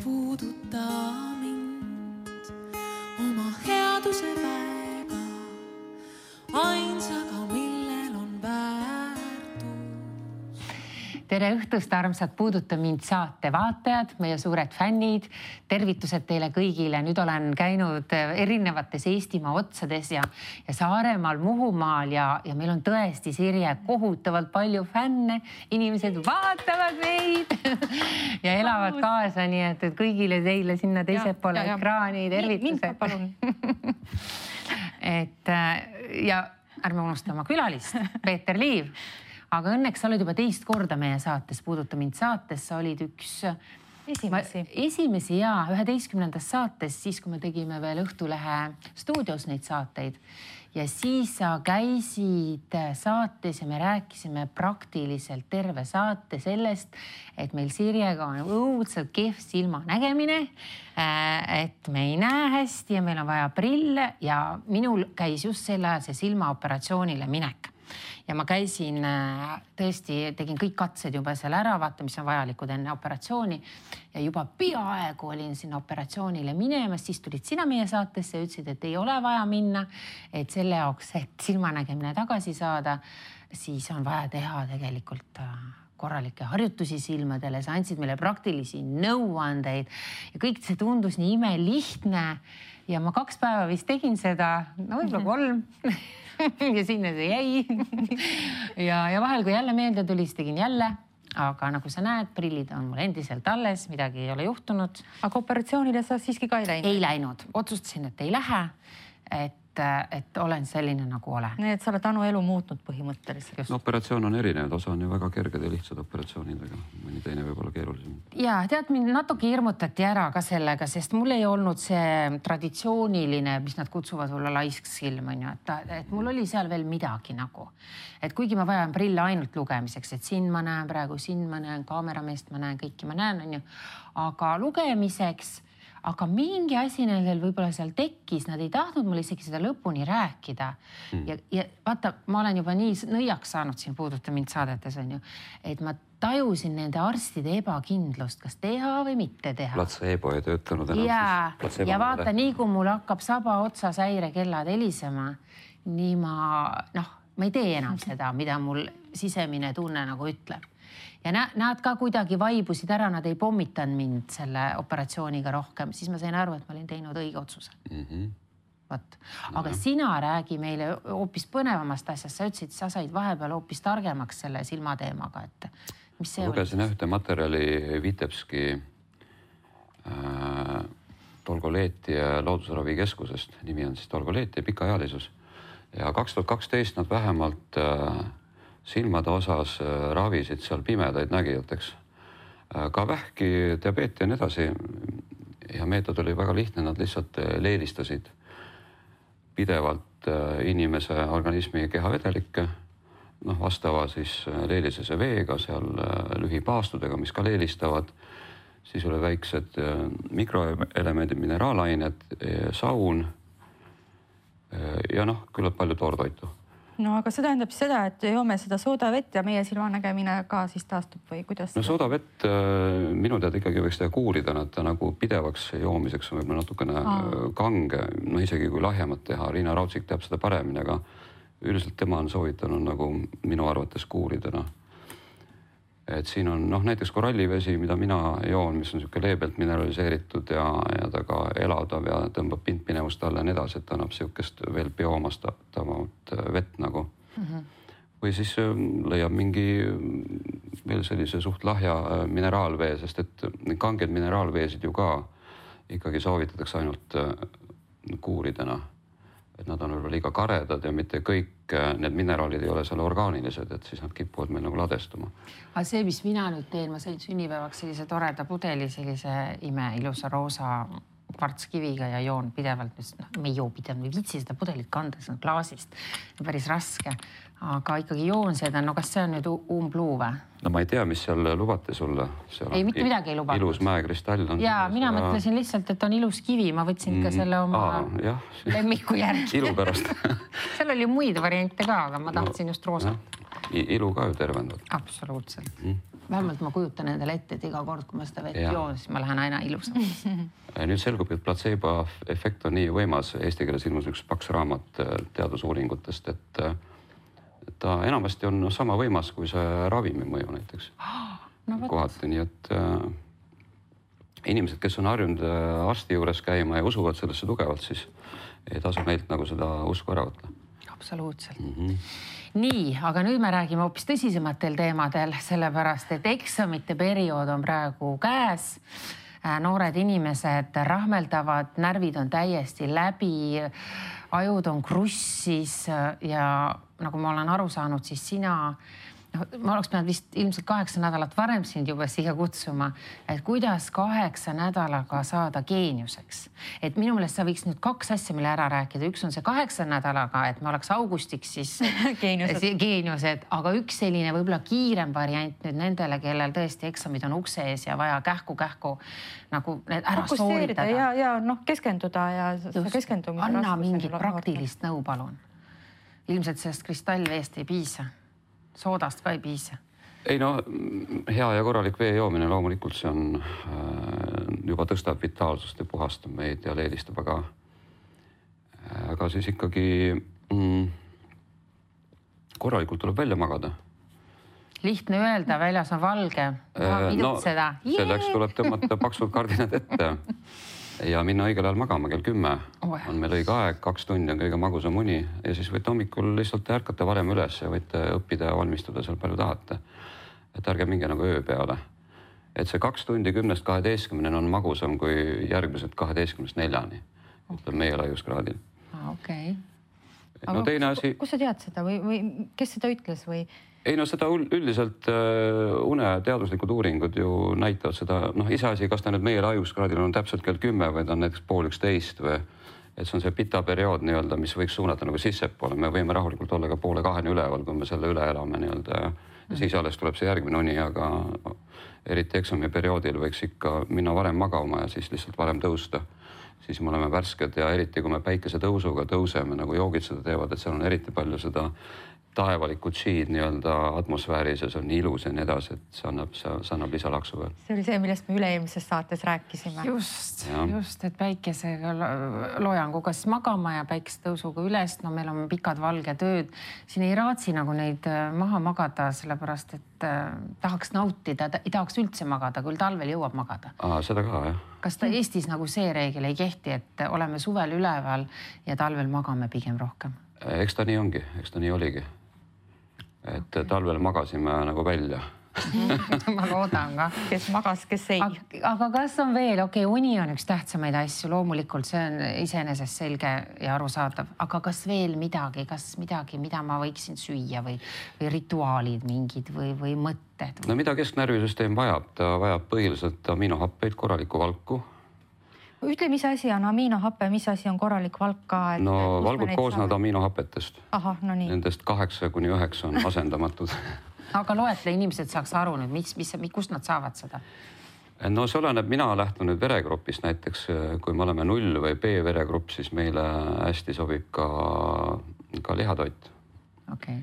puuduta mind oma headuse väega, ainsaga, millel on väärtus. Tere õhtust, armsad Puuduta mind saate vaatajad, meie suured fännid. Tervitused teile kõigile. Nüüd olen käinud erinevates Eestimaa otsades ja Saaremaal, Muhumaal ja meil on tõesti, Sirje, kohutavalt palju fänne. Inimesed vaatavad meid ja elavad kaasa, nii et kõigile teile sinna teised poole ekraani tervitused. Ja ärme unustama külalist, Peeter Liiv. Aga õnneks sa oled juba teist korda meie saates, Puuduta mind saates. Sa olid üks esimesi 11. saates, siis kui me tegime veel Õhtulehe stuudios neid saateid. Ja siis sa käisid saates ja me rääkisime praktiliselt terve saate sellest, et meil Sirjega on õudselt kehv silmanägemine, et me ei näe hästi ja meil on vaja prille ja minul käis just sel ajal see silmaoperatsioonile minek. Ja ma käisin, tõesti tegin kõik katsed juba seal ära, vaata, mis on vajalikud enne operatsiooni ja juba peaaegu olin sinna operatsioonile minemas, siis tulid sina meie saatesse ja ütlesid, et ei ole vaja minna, et selle jaoks, et silmanägemine tagasi saada, siis on vaja teha tegelikult korralikke harjutusi silmadele, sa andsid meile praktilisi nõuandeid ja kõik see tundus nii imelihtne ja ma 2 päeva vist tegin seda, no võib-olla 3 ja sinna see jäi. ja vahel, kui jälle meelde tuli, siis tegin jälle. Aga nagu sa näed, prillid on mul endiselt alles, midagi ei ole juhtunud. Aga operatsioonile sa siiski ka ei läinud? Ei läinud. Otsustasin, et ei lähe, et olen selline nagu olen. Nii, et sa oled Anu elu muutnud põhimõtteliselt. No, operatsioon on erinev, osa on ju väga kerged ja lihtsad operatsioonidega. Mõni teine võib olla keerulisem. Ja, tead, mind natuke hirmutati ära ka sellega, sest mul ei olnud see traditsiooniline, mis nad kutsuvad olla laisk silm, et mul oli seal veel midagi nagu. Et kuigi ma vajan prille ainult lugemiseks, et siin ma näen praegu, siin ma näen kaamerameest, ma näen kõiki, ma näen, aga lugemiseks. Aga mingi asi neil võib-olla seal tekkis, nad ei tahtnud mulle isegi seda lõpuni rääkida. Ja vaata, ma olen juba nii nõiaks saanud siin Puuduta mind saadetes, et ma tajusin nende arstide ebakindlust, kas teha või mitte teha. Placebo ei töötanud enam. Ja vaata, nii kui mul hakkab saba otsas häirekellad helisema, nii ma ei tee enam seda, mida mul sisemine tunne nagu ütleb. Ja nad ka kuidagi vaibusid ära, nad ei pommitanud mind selle operatsiooniga rohkem, siis ma sain aru, et ma olin teinud õige otsuse. Aga sina räägi meile hoopis põnevamast asjast, sa ütlesid, sa said vahepeal hoopis targemaks selle silmateemaga, et mis see oli? Lugesin ühte materjali Vitebski Tolgoleeti loodusravikeskusest, nimi on siis Tolgoleeti pikaealisus ja 2012 nad vähemalt silmade osas ravisid seal pimedaid nägijateks. Ka vähki, diabeeti ja nii edasi. Ja meetod oli väga lihtne, nad lihtsalt leelistasid pidevalt inimese organismi kehavedelikke, vastava siis leelisese veega, seal lühipaastudega, mis ka leelistavad. Siis oli väiksed mikroelemendid, mineraalained, saun ja küllalt palju toortoitu. No aga see tähendab seda, et joome seda soodavett ja meie silmanägemine ka siis taastub või kuidas? No soodavett minu teada ikkagi võiks teha kuurida, nad nagu pidevaks joomiseks on võib-olla natukene kange, isegi kui lahjemat teha. Riina Raudsik teab seda paremini, aga üldiselt tema on soovitanud nagu minu arvates kuurida. Et siin on näiteks korallivesi, mida mina joon, mis on selline leebelt mineraliseeritud ja ta ka elavdav ja tõmbab pindpinevust alla ja nii edasi, et annab sellisest veel bioomastatavat vett nagu. Või siis leiab mingi veel sellise suht lahja mineraalvee, sest et kanged mineraalveesid ju ka ikkagi soovitatakse ainult kuuridena. Et nad on võib-olla liiga karedad ja mitte kõik need mineraalid ei ole seal orgaanilised, et siis nad kipuvad meil nagu ladestuma. Aga see, mis mina nüüd teen, ma sain sünnipäevaks sellise toreda pudeli, sellise ilusa roosa kvartskiviga ja joon pidevalt, me ei joo pidevalt, me viitsi seda pudelit kanda, see on klaasist, päris raske, aga ikkagi joon seda, kas see on nüüd umbluu või? No ma ei tea, mis seal lubati sulle. Ei, mitte midagi ei lubatud. Ilus mäekristall on. Jaa, mina mõtlesin lihtsalt, et on ilus kivi, ma võtsin ka selle oma lemmiku järgi. Ilu pärast. Seal oli muid variante ka, aga ma tahtsin just roosat. Ilu ka ju tervendab. Absoluutselt. vähemalt ma kujutan endale ette, et iga kord, kui ma seda vett joon, siis ma lähen aina ilusamaks. Nüüd selgub, et placebo efekt on nii võimas. Eesti keeles ilmus üks paks raamat teadusuuringutest, et ta enamasti on sama võimas kui see ravimi mõju näiteks. Kohati, nii et inimesed, kes on harjunud arsti juures käima ja usuvad sellesse tugevalt, siis ei tasu neilt nagu seda usku ära võtta. Absoluutselt. Nii, aga nüüd me räägime hoopis tõsisematel teemadel, sellepärast, et eksamite periood on praegu käes. Noored inimesed rahmeldavad, närvid on täiesti läbi, ajud on krussis ja nagu ma olen aru saanud, siis sina, ma oleks pidanud vist ilmselt 8 nädalat varem sind juba siia kutsuma, et kuidas 8 nädalaga saada geeniuseks. Et minu meelest sa võiks nüüd 2 asja meile ära rääkida. Üks on see 8 nädalaga, et me oleks augustiks siis geeniused, aga üks selline võib-olla kiirem variant nüüd nendele, kellel tõesti eksamid on ukse ees ja vaja kähku nagu need ära sooritada. Ja keskenduda ja keskendumise raskusele. Anna mingit praktilist nõu, palun. Ilmselt sellest kristallveest ei piisa. Soodast ka ei piisa. Ei no, hea ja korralik vee joomine loomulikult see on juba tõstab vitaalsust ja puhastab meid ja leelistab, aga siis ikkagi korralikult tuleb välja magada. Lihtne öelda, väljas on valge. Seda. Selleks tuleb tõmmata paksud kardinad ette ja minna õigel ajal magama, kell 10 on meil õige aeg, 2 tundi on kõige magusam uni ja siis võite hommikul lihtsalt ärkata varem üles ja võite õppida ja valmistuda seal palju tahate. Et ärge minge nagu öö peale. Et see 2 tundi 10-12 on magusam kui järgmised 12-4, ütleb meie laiuskraadil. Okei. No teine asi... Kus sa tead seda või kes seda ütles või? Ei no seda üldiselt une teaduslikud uuringud ju näitavad seda, iseasi, kas ta nüüd meie laiuskraadil on täpselt kell 10 või ta on näiteks 10:30 või et see on see pita periood nii-öelda, mis võiks suunata nagu sissepoole. Me võime rahulikult olla ka 1:30 üleval, kui me selle üle elame nii-öelda ja siis alles tuleb see järgmine uni, aga eriti eksami perioodil võiks ikka minna varem magama ja siis lihtsalt varem tõusta. Siis me oleme värsked ja eriti kui me päikese tõusuga tõuseme, nagu joogid seda teevad, et seal on eriti palju seda taevalikku G-d nii-öelda atmosfääris ja see on nii ilus ja nii edasi, et see annab lisalaksu veel. See oli see, millest me üle-eelmises saates rääkisime. Just, et päikesega loojanguga siis magama ja päikesetõusuga üles. No meil on pikad valged ööd. Siin ei raatsi nagu neid maha magada, sellepärast et tahaks nautida, ei tahaks üldse magada, küll talvel jõuab magada. Seda ka, jah. Kas ta Eestis nagu see reegel ei kehti, et oleme suvel üleval ja talvel magame pigem rohkem? Eks ta nii ongi, eks ta nii oligi. Et talvel magasime nagu välja. Ma loodan ka. Kes magas, kes ei. Aga kas on veel, uni on üks tähtsamaid asju, loomulikult see on iseenesest selge ja arusaadav, aga kas veel midagi, mida ma võiksin süüa või rituaalid mingid või mõtted? No mida kesknärvisüsteem vajab? Ta vajab põhiliselt aminohappeid, korralikku valku. Ütle, mis asi on aminohappe, mis asi on korralik valk ka? No valgud koosnevad aminohappetest. Ahah, no nii. Nendest 8-9 on asendamatud. Aga loetle, inimesed saaks aru nüüd, kust nad saavad seda? No see oleneb, mina lähtun nüüd veregrupist näiteks, kui me oleme 0 või B veregrupp, siis meile hästi sobib ka lihatoit. Okei.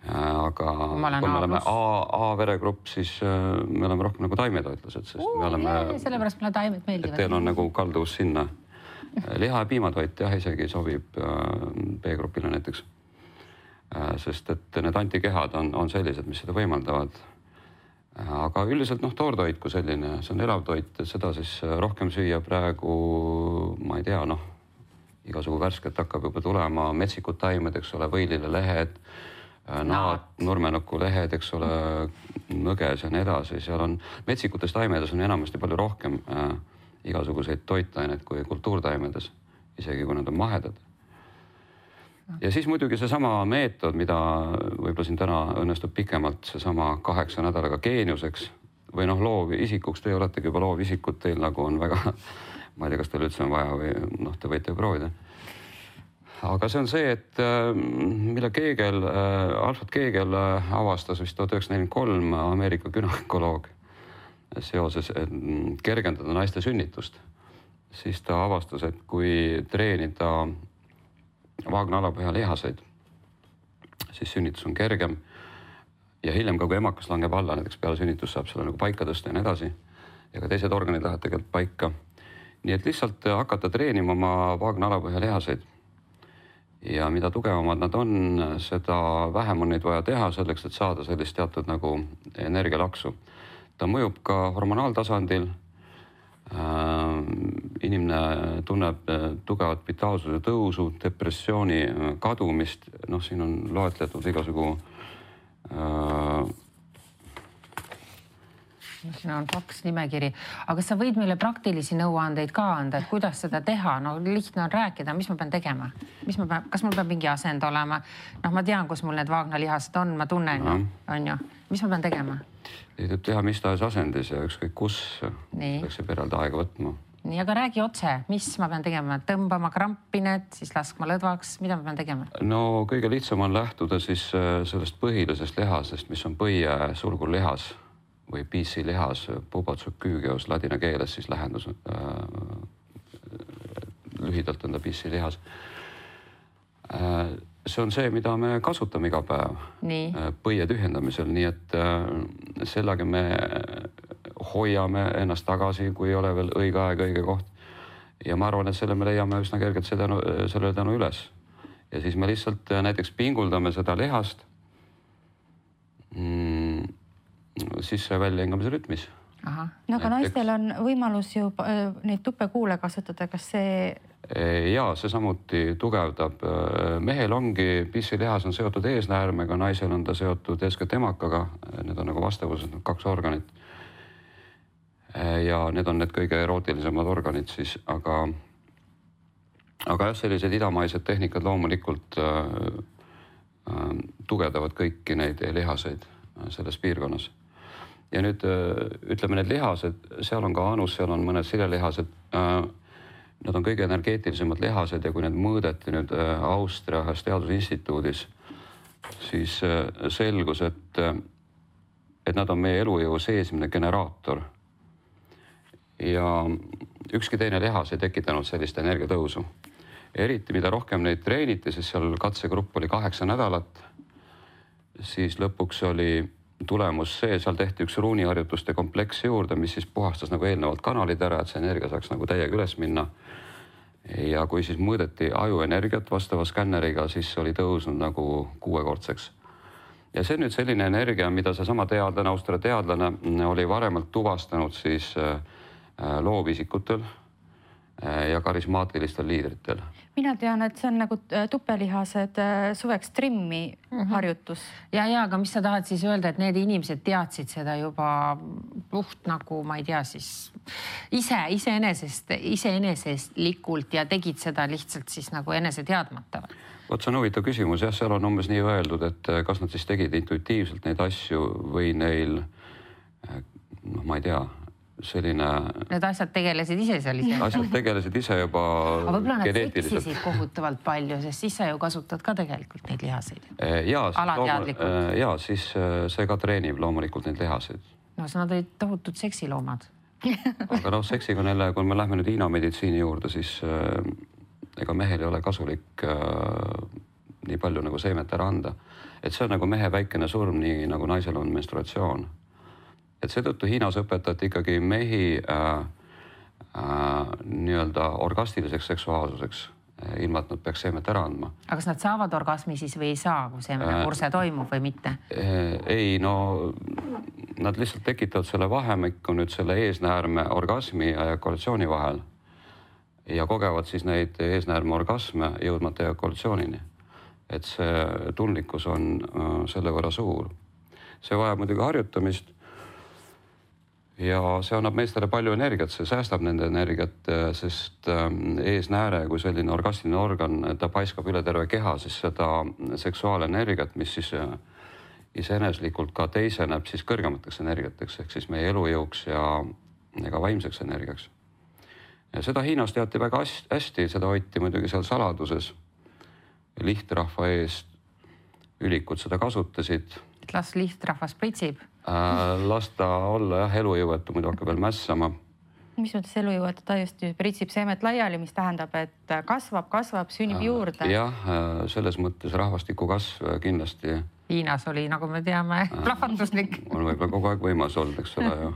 Aga kui me oleme A veregrupp, siis me oleme rohkem nagu taimetoitlased, sest me oleme... Sellepärast mulle taimed meeldivad. Et teil on nagu kalduvus sinna. Liha ja piimatoit jah, isegi sobib B-grupile näiteks. Sest et need antikehad on sellised, mis seda võimaldavad. Aga üldiselt toortoit kui selline, see on elav toit, et seda siis rohkem süüa praegu, ma ei tea, igasugu värsket hakkab juba tulema, metsikud taimed, eks ole, võilile lehed, nurmenuku lehed, eks ole, nõges ja nii edasi. Seal on metsikutes taimedes on enamasti palju rohkem igasuguseid toitaineid kui kultuurtaimedes, isegi kui nad on mahedad. Ja siis muidugi seesama meetod, mida võib-olla siin täna õnnestub pikemalt, seesama 8 nädalaga geeniuseks või loovisikuks, teie oletegi juba loovisikud, teil nagu on väga, ma ei tea, kas teil üldse on vaja või te võite ju proovida. Aga see on see, et mille Alfred Kegel avastas vist 1943 Ameerika gynekoloog seoses kergendada naiste sünnitust. Siis ta avastas, et kui treenida vaagna alapõhja lihaseid, siis sünnitus on kergem ja hiljem ka, kui emakas langeb alla, näiteks peale sünnitust saab selle nagu paika tõsta ja nii edasi. Ja ka teised organid lähevad tegelikult paika. Nii et lihtsalt hakata treenima oma vaagna alapõhja lihaseid. Ja mida tugevamad nad on, seda vähem on neid vaja teha selleks, et saada sellist teatud nagu energialaksu. Ta mõjub ka hormonaaltasandil. Inimene tunneb tugevat vitaalsuse tõusu, depressiooni kadumist. Noh, siin on loetletud igasugu siin on paks nimekiri, aga sa võid meile praktilisi nõuandeid ka anda, et kuidas seda teha? No lihtne on rääkida, mis ma pean tegema? Kas mul peab mingi asend olema? Noh, ma tean, kus mul need vaagnalihased on, ma tunnen, on ju. Mis ma pean tegema? Tuleb teha mis tahes asendis ja ükskõik kus peaks see peralda aega võtma. Nii, aga räägi otse, mis ma pean tegema? Tõmbama krampinet, siis laskma lõdvaks, mida ma pean tegema? No kõige lihtsam on lähtuda siis sellest põhilisest lihasest, mis on põie sulgulihas või PC lihas, pubotsüküügeos ladina keeles siis lähendus. Lühidalt on ta PC lihas. See on see, mida me kasutame iga päev põie tühjendamisel, nii et sellega me hoiame ennast tagasi, kui ei ole veel õige aeg, õige koht. Ja ma arvan, et selle me leiame üsna kergelt selle tänu üles. Ja siis me lihtsalt näiteks pinguldame seda lihast sisse välja hingamise rütmis. No aga naistel on võimalus ju neid tupekuule kasutada, kas see... Jaa, see samuti tugevdab. Mehel ongi, pissilihas on seotud eesnäärmega, naisel on ta seotud eeskätt emakaga. Need on nagu vastavused, 2 organit. Ja need on need kõige erootilisemad organid siis, aga jah, sellised idamaised tehnikad loomulikult tugevdavad kõiki neid lihaseid selles piirkonnas. Ja nüüd ütleme need lihased, seal on ka anus, seal on mõned silelihased. Nad on kõige energeetilisemad lihased ja kui need mõõdeti nüüd Austria ühes teadusinstituudis, siis selgus, et nad on meie elujõu seesmine generaator. Ja ükski teine lihas ei tekitanud sellist energiatõusu. Eriti mida rohkem neid treeniti, siis seal katsegrupp oli 8 nädalat, siis lõpuks oli tulemus see, seal tehti üks ruuniharjutuste kompleks juurde, mis siis puhastas nagu eelnevalt kanalid ära, et see energia saaks nagu täiega üles minna. Ja kui siis mõõdeti ajuenergiat vastava skänneriga, siis oli tõusnud nagu 6-kordseks. Ja see on nüüd selline energia, mida see sama teadlane, Austria teadlane oli varemalt tuvastanud siis loovisikutel ja karismaatilistel liidritel. Mina tean, et see on nagu tupelihased suveks trimmi harjutus. Ja, aga mis sa tahad siis öelda, et need inimesed teadsid seda juba puht nagu, ma ei tea, siis iseenesestlikult ja tegid seda lihtsalt siis nagu enese teadmata? Vot see on huvitav küsimus. Jah, seal on umbes nii öeldud, et kas nad siis tegid intuitiivselt neid asju või neil, ma ei tea, selline... Need asjad tegelesid ise seal ise? Asjad tegelesid ise juba geneetiliselt. Aga võib-olla nad seksisid kohutavalt palju, sest siis sa ju kasutad ka tegelikult neid lihaseid. Alateadlikult. Jaa, siis see ka treenib loomulikult neid lihaseid. No see nad olid tohutud seksiloomad. Aga seksiga neile, kui me lähme nüüd Hiina meditsiini juurde, siis ega mehel ei ole kasulik nii palju nagu seemet ära anda. Et see on nagu mehe väikene surm, nii nagu naisel on menstruatsioon. Et seetõttu Hiinas õpetati ikkagi mehi nii-öelda orgastiliseks seksuaalsuseks, ilma et nad peaks seemet ära andma. Aga kas nad saavad orgasmi siis või ei saa, kui seemene kurse toimub või mitte? Ei, no nad lihtsalt tekitavad selle vahemikku nüüd selle eesnäärme orgasmi ja ejakulatsiooni vahel ja kogevad siis neid eesnäärme orgasme jõudmata ejakulatsioonini. Et see tundlikkus on selle võrra suur. See vajab muidugi harjutamist. Ja see annab meestele palju energiat, see säästab nende energiat, sest eesnääre kui selline orgastiline organ, ta paiskab üle terve keha, siis seda seksuaalenergiat, mis siis iseeneslikult ka teiseneb siis kõrgemateks energiateks, ehk siis meie elujõuks ja ka vaimseks energiaks. Ja seda Hiinas teati väga hästi, seda hoiti muidugi seal saladuses. Lihtrahva eest ülikud seda kasutasid. Et las lihtrahvas pritsib? Las ta olla elujõuetu, muidu hakkab veel mässama. Mis mõttes elujõuetu? Ta just pritsib seemet laiali, mis tähendab, et kasvab, sünnib juurde. Jah, selles mõttes rahvastiku kasv kindlasti Hiinas oli, nagu me teame, plahvatuslik. On võib-olla kogu aeg võimas olnud, eks ole ju.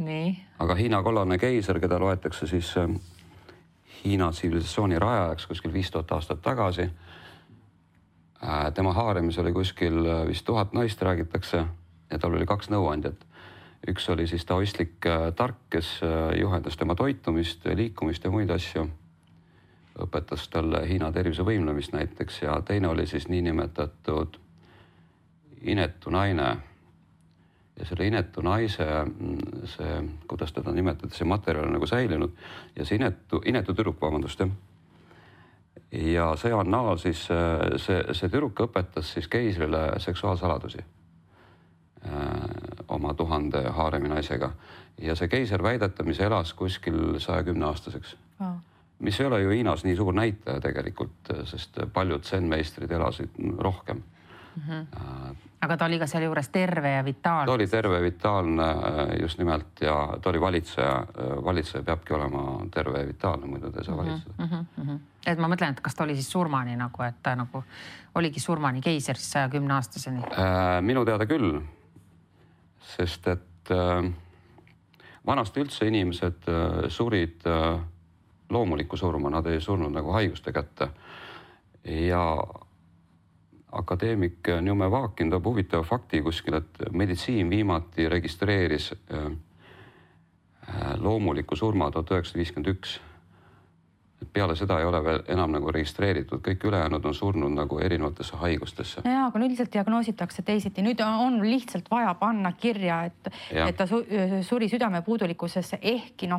Nii. Aga Hiina kollane keiser, keda loetakse siis Hiina tsivilisatsiooni rajajaks kuskil 5000 aastat tagasi. Tema haaremis oli kuskil vist 1000 naist, räägitakse, ja tal oli 2 nõuandjat. Üks oli siis taoistlik tark, kes juhendas tema toitumist, liikumist ja muid asju. Õpetas talle Hiina tervise võimlemist näiteks ja teine oli siis niinimetatud inetu naine. Ja selle inetu naise, see, kuidas teda nimetada, see materjal on nagu säilinud ja see inetu tüdruk, vabandust, jah. Ja see annaal siis, see tüdruk õpetas siis keisrile seksuaalsaladusi oma 1000 haaremi naisega ja see keiser väidetamise elas kuskil 110 aastaseks. Mis ei ole ju Hiinas nii suur näitaja tegelikult, sest paljud zen-meistrid elasid rohkem. Aga ta oli ka seal juures terve ja vitaalne. Ta oli terve, vitaalne just nimelt ja ta oli valitseja. Valitseja peabki olema terve ja vitaalne, muidu ta ei saa valitseda. Et ma mõtlen, et kas ta oli siis surmani nagu, et ta nagu oligi surmani keiser siis 110 aastaseni? Minu teada küll, sest et vanasti üldse inimesed surid loomulikku surma, nad ei surnud nagu haiguste kätte. Ja akadeemik Njume Vaakin toob huvitava fakti kuskil, et meditsiin viimati registreeris loomuliku surma 1951. Peale seda ei ole veel enam nagu registreeritud, kõik ülejäänud on surnud nagu erinevatesse haigustesse. Ja, aga üldiselt diagnoositakse teisiti. Nüüd on lihtsalt vaja panna kirja, et ta suri südamepuudulikkusesse ehkki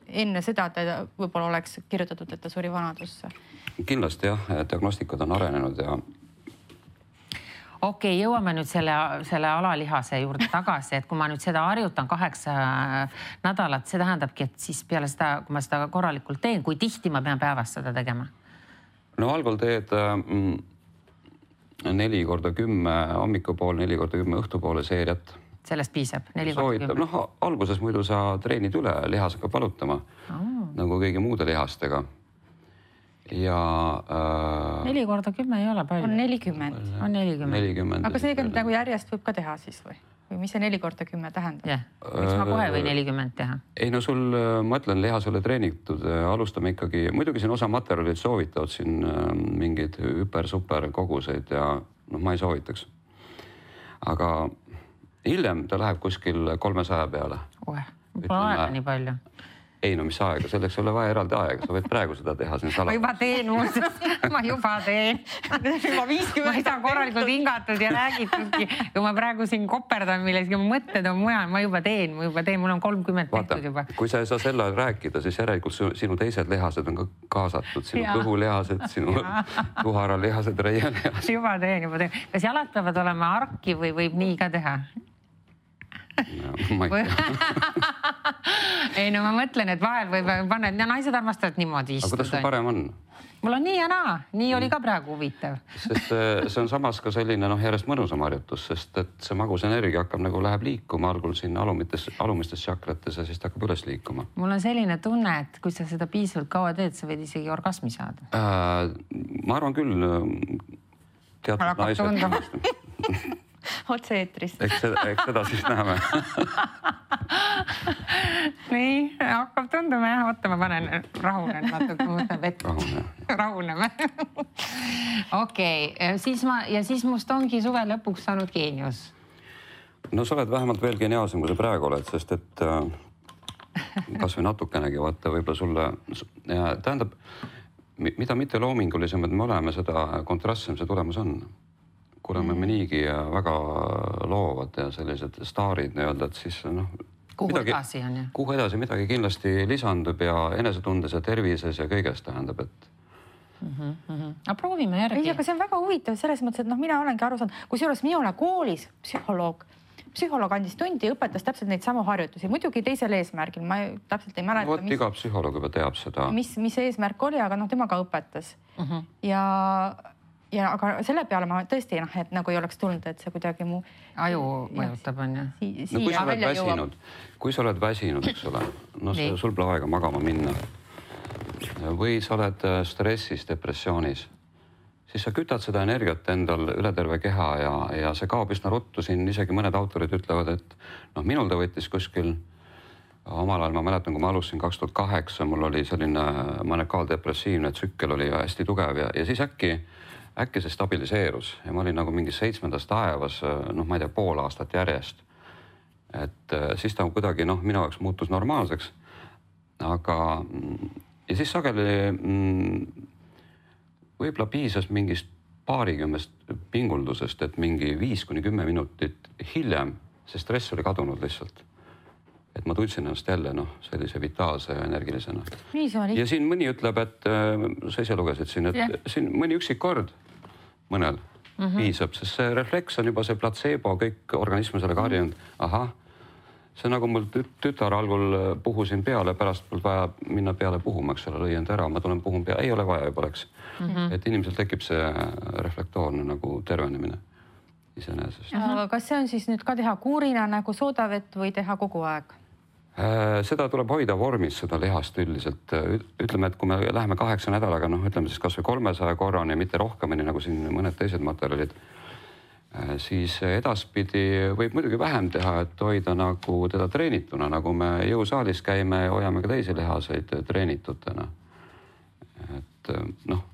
enne seda ta võib-olla oleks kirjutatud, et ta suri vanadusse. Kindlasti jah, diagnostikad on arenenud ja Okei, jõuame nüüd selle alalihase juurde tagasi, et kui ma nüüd seda harjutan 8 nädalat, see tähendabki, et siis peale seda, kui ma seda korralikult teen, kui tihti ma pean päevas seda tegema? No algul teed 4x10 hommikupool, 4x10 õhtupoole seeriat. Sellest piisab? 4x10? Alguses muidu sa treenid üle, lihas hakkab valutama, nagu kõigi muude lihastega. Ja 4x10 ei ole palju. On 40. On 40. Aga see nagu järjest võib ka teha siis või? Või mis see 4x10 tähendab? Jah, miks ma kohe või 40 teha? Ei no sul, ma ütlen, lihas oli treenitud, alustame ikkagi, muidugi siin osa materjalid soovitavad siin mingeid super koguseid ja ma ei soovitaks. Aga hiljem ta läheb kuskil 300 peale. Pole aega nii palju. Ei no mis aega, selleks ei ole vaja eraldi aega, sa võid praegu seda teha siin Ma juba teen muuseas, ma juba teen. Ma ei saa korralikult hingatud ja räägitudki. Kui ma praegu siin koperdan milleski, ma mõtted on mujal, ma juba teen, mul on 30 tehtud juba. Kui sa ei saa selle rääkida, siis järelikult sinu teised lihased on ka kaasatud, sinu kõhulihased, sinu kuharalihased, reielihased. Juba teen. Kas jalad peavad olema arki või võib nii ka teha? Ma ei tea. Ei no ma mõtlen, et vahel võib panna, et naised armastavad niimoodi istuda. Aga kuidas sul parem on? Mul on nii ja naa, nii oli ka praegu huvitav. Sest see on samas ka selline järjest mõnusam harjutus, sest et see magus energia hakkab nagu läheb liikuma algul siin alumistes tšakrates ja siis ta hakkab üles liikuma. Mul on selline tunne, et kui sa seda piisavalt kaua teed, sa võid isegi orgasmi saada. Ma arvan küll, teatud naised. Otse-eetris. Eks seda siis näeme. Nii, hakkab tunduma jah. Oota, ma panen rahunen natuke, mõtlen vett. Rahuneme. Okei, siis must ongi suve lõpuks saanud geenius. No sa oled vähemalt veel geniaalsem, kui sa praegu oled, sest et kas või natukenegi vaata võib-olla sulle tähendab, mida mitte loomingulisemad me oleme, seda kontrastsem see tulemus on. Kuna me niigi väga loovad ja sellised staarid nii-öelda, et siis kuhu edasi on jah? Kuhu edasi midagi kindlasti lisandub ja enesetundes ja tervises ja kõigest tähendab, et Aga proovime järgi. Ei, aga see on väga huvitav selles mõttes, et mina olengi aru saanud, kusjuures mina koolis psühholoog andis tundi ja õpetas täpselt neid samu harjutusi. Muidugi teisel eesmärgil, ma täpselt ei mäleta. Vot iga psühholoog juba teab seda. Mis eesmärk oli, aga tema ka õpetas. Aga selle peale ma tõesti, et nagu ei oleks tulnud, et see kuidagi mu... Aju mõjutab, on ju? Kui sa oled väsinud, eks ole, sul pole aega magama minna või sa oled stressis, depressioonis, siis sa kütad seda energiat endal üle terve keha ja see kaob üsna ruttu. Siin isegi mõned autorid ütlevad, et noh, minul ta võttis kuskil omal ajal, ma mäletan, kui ma alustasin 2008, mul oli selline manekaaldepressiivne tsükkel oli hästi tugev ja siis äkki see stabiliseerus ja ma olin nagu mingi 7. taevas, noh, ma ei tea, pool aastat järjest. Et siis ta kuidagi, noh, minu jaoks muutus normaalseks. Aga ja siis sageli võib-olla piisas mingist paarikümnest pinguldusest, et mingi 5-10 minutit hiljem see stress oli kadunud lihtsalt. Et ma tundsin ennast jälle, noh, sellise vitaalse ja energilisena. Ja siin mõni ütleb, et sa ise lugesid siin, et siin mõni üksik kord mõnel piisab, sest see refleks on juba see platseebo, kõik organism sellega harjunud. Ahah, see nagu mul tütar algul puhusin peale, pärast mul vaja minna peale puhuma, eks ole, lõi end ära, ma tulen puhun peale, ei ole vaja juba oleks. Et inimesel tekib see reflektoorne nagu tervenemine iseenesest. Kas see on siis nüüd ka teha kuurina nagu soodavett või teha kogu aeg? Seda tuleb hoida vormis, seda lihast üldiselt. Ütleme, et kui me läheme 8 nädalaga, noh, ütleme siis kas või 300 korrani, mitte rohkemini nagu siin mõned teised materjalid, siis edaspidi võib muidugi vähem teha, et hoida nagu teda treenituna, nagu me jõusaalis käime ja hoiame ka teisi lihaseid treenitutena. Et noh,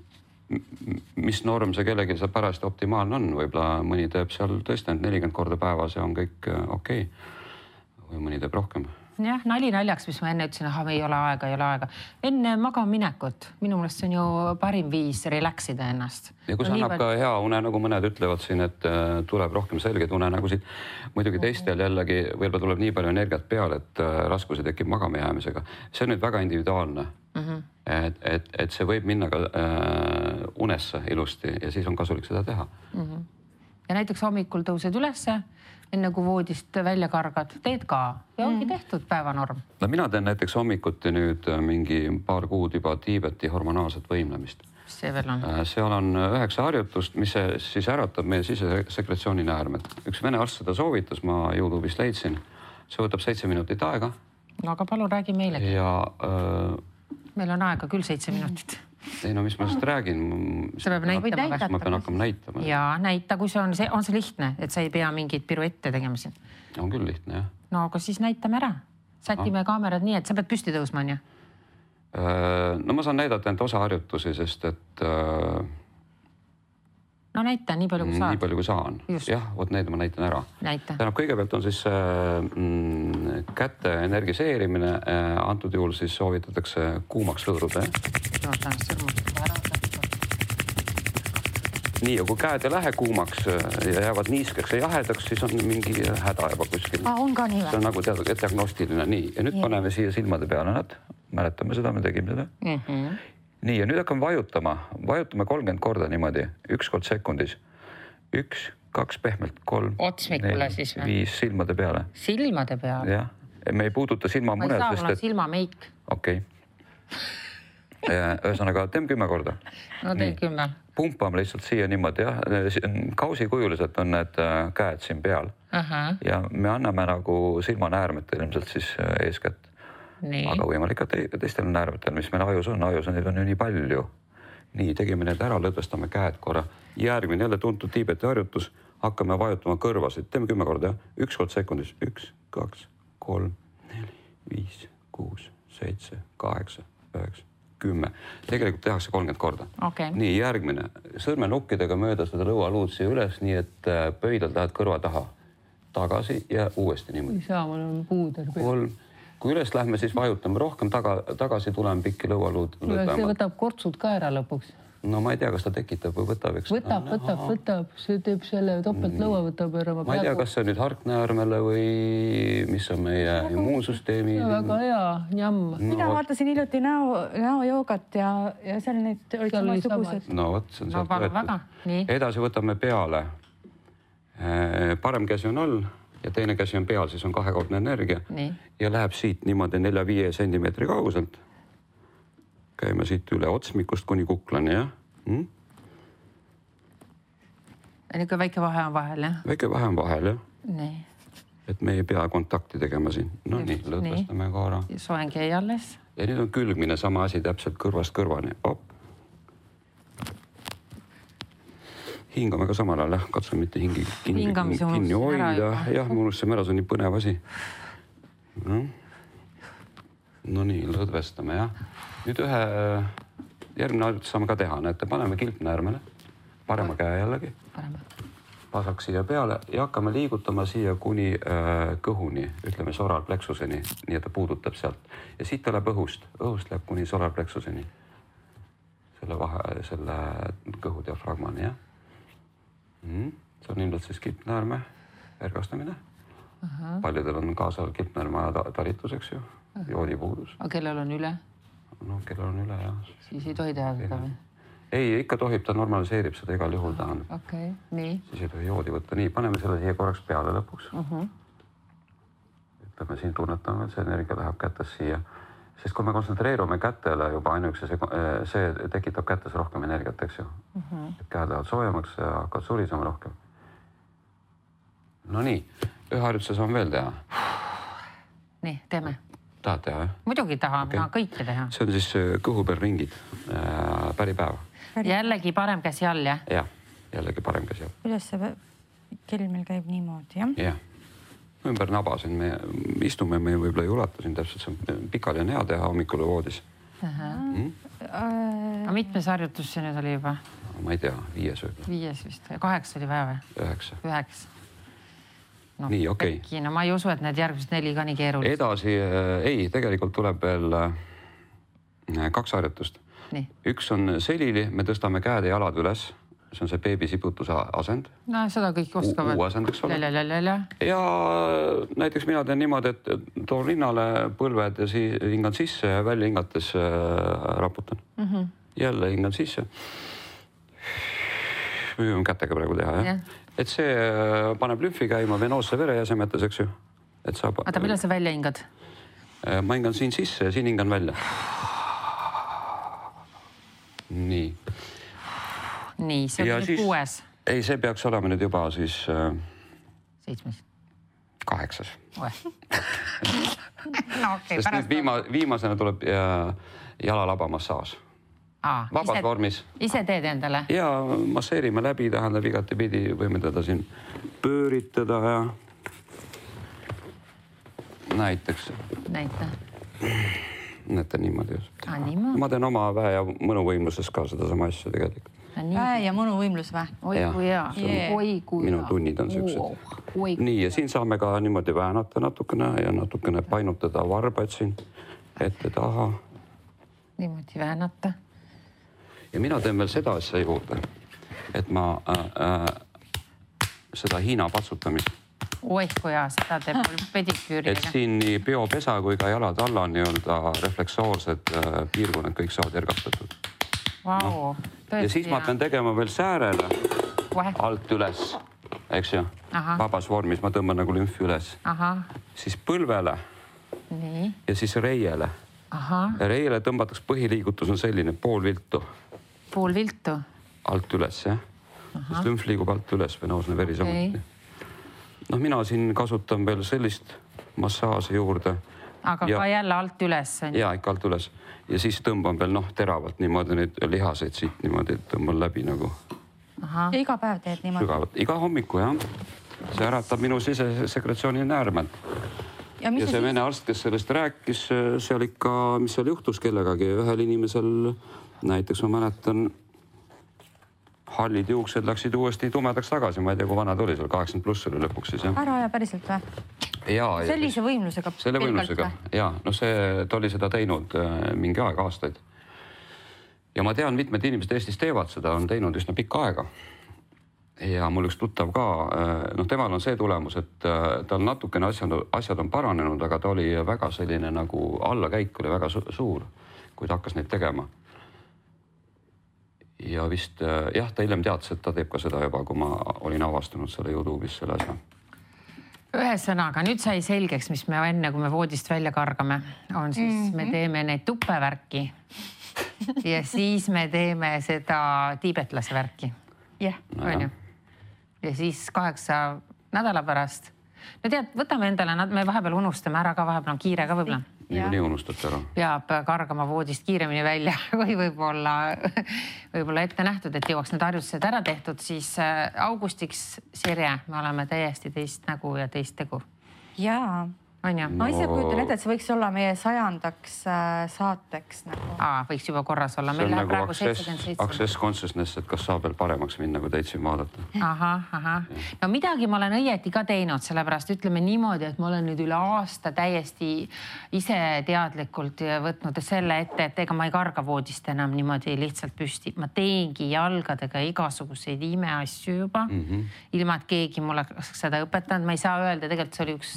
mis norm see kellegi see pärast optimaalne on, võib-olla mõni teeb seal tõesti 40 korda päevas ja on kõik okei. Või mõni teeb rohkem. Jah, nali naljaks, mis ma enne ütlesin, ei ole aega. Enne magaminekut, minu meelest see on ju parim viis relaxida ennast. Ja kui see annab ka hea une, nagu mõned ütlevad siin, et tuleb rohkem selgeid unenägusid. Muidugi teistel jällegi võib-olla tuleb nii palju energiat peale, et raskusi tekib magama jäämisega. See on nüüd väga individuaalne. Et see võib minna ka unesse ilusti ja siis on kasulik seda teha. Ja näiteks hommikul tõused ülesse, enne kui voodist välja kargad, teed ka ja ongi tehtud päevanorm. No mina teen näiteks hommikuti nüüd mingi paar kuud juba Tiibeti hormonaalset võimlemist. See veel on? Seal on 9 harjutust, mis siis äratab meie sisesekretsiooni näärmed. Üks vene arst seda soovitas, ma YouTube'ist leidsin. See võtab 7 minutit aega. No aga palun räägi meilegi. Ja meil on aega küll 7 minutit. Ei no mis ma sellest räägin? Sa peab näitama. Ma pean hakkama näitama. Ja näita, kui see on see lihtne, et sa ei pea mingit piruette tegema siin. On küll lihtne, jah. No aga siis näitame ära. Sätime kaamerad nii, et sa pead püsti tõusma, on ju? No ma saan näidata enda osa harjutusi, sest et... No näita nii palju, kui saad. Nii palju, kui saan. Jah, need ma näitan ära. Tähendab, kõigepealt on siis käte energiseerimine. Antud juhul siis soovitatakse kuumaks lõõruda. Nii, ja kui käed ei lähe kuumaks ja jäävad niiskeks ja jahedaks, siis on mingi häda juba kuskil. On ka nii või? See on nagu diagnostiline. Nii, ja nüüd paneme siia silmade peale nad. Mäletame seda, me tegime seda. Nii, ja nüüd hakkame vajutama. Vajutame 30 korda niimoodi, 1 kord sekundis. 1, 2 pehmelt, 3, 4, 5 silmade peale. Silmade peale? Jah, me ei puuduta silmamuned. Ma ei saa, mul on silmameik. Okei. Ühesõnaga, teeme 10 korda. No teed 10. Pumpame lihtsalt siia niimoodi, jah. Kausikujuliselt on need käed siin peal. Ja me anname nagu silmanäärmetel ilmselt siis eeskätt. Aga võimalik ka teistel näärmetel, mis meil ajus on, neid on ju nii palju. Nii, tegime need ära, lõdvestame käed korra. Järgmine jälle tuntud Tiibeti harjutus, hakkame vajutama kõrvasid. Teeme 10 korda, jah. 1 kord sekundis. 1, 2, 3, 4, 5, 6, 7, 8, 9, 10. Tegelikult tehakse 30 korda. Nii, järgmine. Sõrmenukkidega mööda seda lõualuud siia üles, nii et pöidlad lähed kõrva taha. Tagasi ja uuesti niimoodi. Ei saa, mul on puuder. 3. Kui üles lähme, siis vajutame rohkem tagasi, tuleme pikki lõualuud. See võtab kortsud ka ära lõpuks. No ma ei tea, kas ta tekitab või võtab. Võtab. See teeb selle topelt lõua võtab ära. Ma ei tea, kas see on nüüd harknäärmele või mis on meie immuunsüsteemi. Väga hea, jamm. Mina vaatasin hiljuti näojoogat ja seal need olid samasugused. No võt, see on sealt võetud. Edasi võtame peale. Parem käsi on all ja teine käsi on peal, siis on 2-kordne energia. Ja läheb siit niimoodi 4-5 sentimeetri kauguselt. Käime siit üle otsmikust kuni kuklani, jah? Niisugune väike vahe on vahel, jah? Väike vahe on vahel, jah. Nii. Et me ei pea kontakti tegema siin. No nii, lõdvestame korra. Soeng jäi alles. Ja nüüd on külgmine sama asi täpselt kõrvast kõrvani. Op. hingame ka samal ajal, katsume mitte hingi kinni hoida. Jah, ma unustasime ära, see on nii põnev asi. No nii, lõdvestame, jah. Nüüd järgmine harjutus saame ka teha. Näete, paneme kilpnäärmele, parema käe jällegi. Pasak siia peale ja hakkame liigutama siia kuni kõhuni, ütleme solarplexuseni, nii et ta puudutab sealt. Ja siit ta läheb õhust läheb kuni solarplexuseni. Selle kõhu diafragmani, jah. See on ilmselt siis kilpnäärme ergastamine. Paljudel on kaasal kilpnäärme talituseks ju, joodipuudus. Aga kellel on üle? No, kellel on üle, jah. Siis ei tohi teha seda või? Ei, ikka tohib, ta normaliseerib seda igal juhul tahan. Okei, nii. Siis ei tohi joodi võtta. Nii, paneme selle siia korraks peale lõpuks. Ütleme, siin tunnetame, et see energia läheb kätes siia. Sest kui me kontsentreerume kätele juba ainuüksi, see tekitab kätes rohkem energiat, eks ju. Käed lähevad soojemaks ja hakkavad surisema rohkem. No nii, ühe harjutuse saame veel teha. Nii, teeme. Tahad teha, jah? Muidugi tahame, kõike teha. See on siis kõhu peal ringid, päripäeva. Jällegi parem käsi all, jah? Jah, jällegi parem käsi all. Kuidas see kell meil käib niimoodi, jah? Jah. Ümber naba siin me istume, me võib-olla ei ulata siin täpselt, see on pikali on hea teha hommikul voodis. Aga mitmes harjutus see nüüd oli juba? Ma ei tea, 5 võib-olla. 5 vist, 8 oli vaja või? 9. No, nii, okei. No ma ei usu, et need järgmised 4 ka nii keerulised. Edasi, ei, tegelikult tuleb veel 2 harjutust. Nii. Üks on selili, me tõstame käed ja jalad üles. See on see beebisiputuse asend. No seda kõik oskavad. Asendaks ole. Ja. Ja näiteks mina teen niimoodi, et toon rinnale põlved ja hingan sisse ja välja hingates raputan. Jälle hingan sisse. Võime kätega praegu teha, jah? Et see paneb lümfi käima venoosse verejäsemetes, eks ju. Oota, millal sa välja hingad? Ma hingan siin sisse ja siin hingan välja. Nii. Nii, see on nüüd 6. Ei, see peaks olema nüüd juba siis 7. 8. No okei, sest nüüd viimasena tuleb jalalabamassaaž. Vabas vormis. Ise teed endale? Ja masseerime läbi, tähendab igati pidi, võime teda siin pööritada ja näiteks. Näete niimoodi. Ma teen oma väe ja mõnuvõimluses ka seda sama asja tegelikult. Väe ja mõnuvõimlus või? Oi kui hea. Minu tunnid on sellised. Nii, ja siin saame ka niimoodi väänata natukene ja natukene painutada varbaid siin ette taha. Niimoodi väänata. Ja mina teen veel seda asja juurde, et ma seda Hiina patsutamist. Oi kui hea, seda teeb mul pediküüriga. Et siin nii peopesa kui ka jalad alla nii-öelda refleksoorsed piirkonnad kõik saavad ergastatud. Vau, ja siis ma pean tegema veel säärele alt üles, eks ju, vabas vormis, ma tõmban nagu lümfi üles. Siis põlvele ja siis reiele. Reiele tõmbatakse põhiliigutus on selline pool viltu. Pool viltu? Alt üles, jah. Sest lümf liigub alt üles, venoosne veri samuti. No mina siin kasutan veel sellist massaaži juurde. Aga ka jälle alt üles? Jaa, ikka alt üles. Ja siis tõmban veel teravalt niimoodi neid lihaseid siit niimoodi, et tõmban läbi nagu. Ja iga päev teed niimoodi? Sügavalt. Iga hommiku, jah. See äratab minu sisesekretsiooni näärmelt. Ja see vene arst, kes sellest rääkis, seal ikka, mis seal juhtus kellegagi, ühel inimesel, näiteks ma mäletan, hallid juuksed läksid uuesti tumedaks tagasi, ma ei tea, kui vana tuli seal, 80+ oli lõpuks siis, jah. Ära ja päriselt või? Sellise võimlusega? Selle võimlusega, jaa. No ta oli seda teinud mingi aeg, aastaid. Ja ma tean, mitmed inimesed Eestis teevad seda, on teinud üsna pikka aega. Ja mul üks tuttav ka, temal on see tulemus, et tal natukene asjad on paranenud, aga ta oli väga selline nagu allakäik oli väga suur, kui ta hakkas neid tegema. Ja vist, jah, ta hiljem teadis, et ta teeb ka seda juba, kui ma olin avastanud selle YouTube'is selle asja. Ühesõnaga, nüüd sai selgeks, mis me enne, kui me voodist välja kargame, on siis, me teeme neid tuppevärki ja siis me teeme seda tiibetlase värki. Jah. Ja siis 8 nädala pärast. No tead, võtame endale, me vahepeal unustame ära ka, vahepeal on kiire ka võib-olla. niikuinii unustate ära. Peab kargama voodist kiiremini välja kui võib-olla ette nähtud, et jõuaks need harjutused ära tehtud, siis augustiks, Sirje, me oleme täiesti teist nägu ja teist tegu. Jaa. Ma ise kujutan ette, et see võiks olla meie 100. saateks nagu. Võiks juba korras olla. See on nagu access consciousness, et kas saab veel paremaks minna, kui teid siin vaadata. No midagi ma olen õieti ka teinud, sellepärast ütleme niimoodi, et ma olen nüüd üle aasta täiesti ise teadlikult võtnud selle ette, et ega ma ei karga voodist enam niimoodi lihtsalt püsti. Ma teengi jalgadega igasuguseid imeasju juba, ilma et keegi mulle seda õpetanud. Ma ei saa öelda, tegelikult see oli üks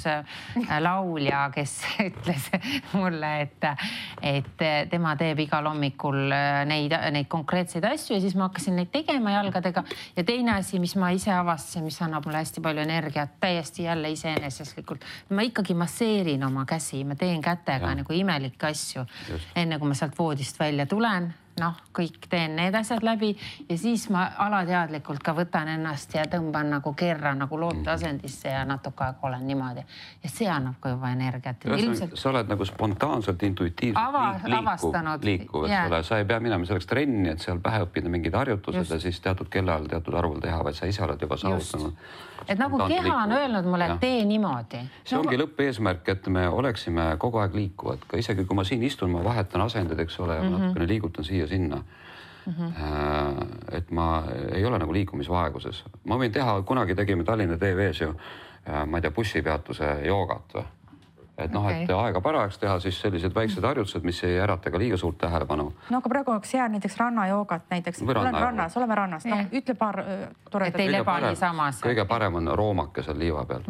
laulja, kes ütles mulle, et tema teeb igal hommikul neid konkreetseid asju ja siis ma hakkasin neid tegema jalgadega. Ja teine asi, mis ma ise avastasin, mis annab mulle hästi palju energiat, täiesti jälle iseeneseslikult. Ma ikkagi masseerin oma käsi, ma teen kätega nagu imelikke asju, enne kui ma sealt voodist välja tulen. Kõik teen need asjad läbi ja siis ma alateadlikult ka võtan ennast ja tõmban nagu kerra nagu looteasendisse ja natuke aega olen niimoodi. Ja see annab ka juba energiat. Sa oled nagu spontaanselt, intuitiivselt liikuv, sa ei pea minema selleks trenni, et seal pähe õppida mingid harjutused ja siis teatud kellal teatud arvul teha, vaid sa ise oled juba saavutanud. Et nagu keha on öelnud mulle, et tee niimoodi. See ongi lõppeesmärk, et me oleksime kogu aeg liikuvad. Ka isegi kui ma siin istun, ma vahetan asendid, eks ole, ja natukene liigutan siia sinna. Et ma ei ole nagu liikumisvaeguses. Ma võin teha, kunagi tegime Tallinna TV-s ju, ma ei tea, bussipeatuse joogat või. Et aega parajaks teha siis sellised väiksed harjutused, mis ei ärata ka liiga suurt tähelepanu. No aga praegu oleks hea näiteks rannajoogat näiteks. Oleme rannas. Ütle paar toredat. Et ei leba nii samas. Kõige parem on roomake seal liiva peal.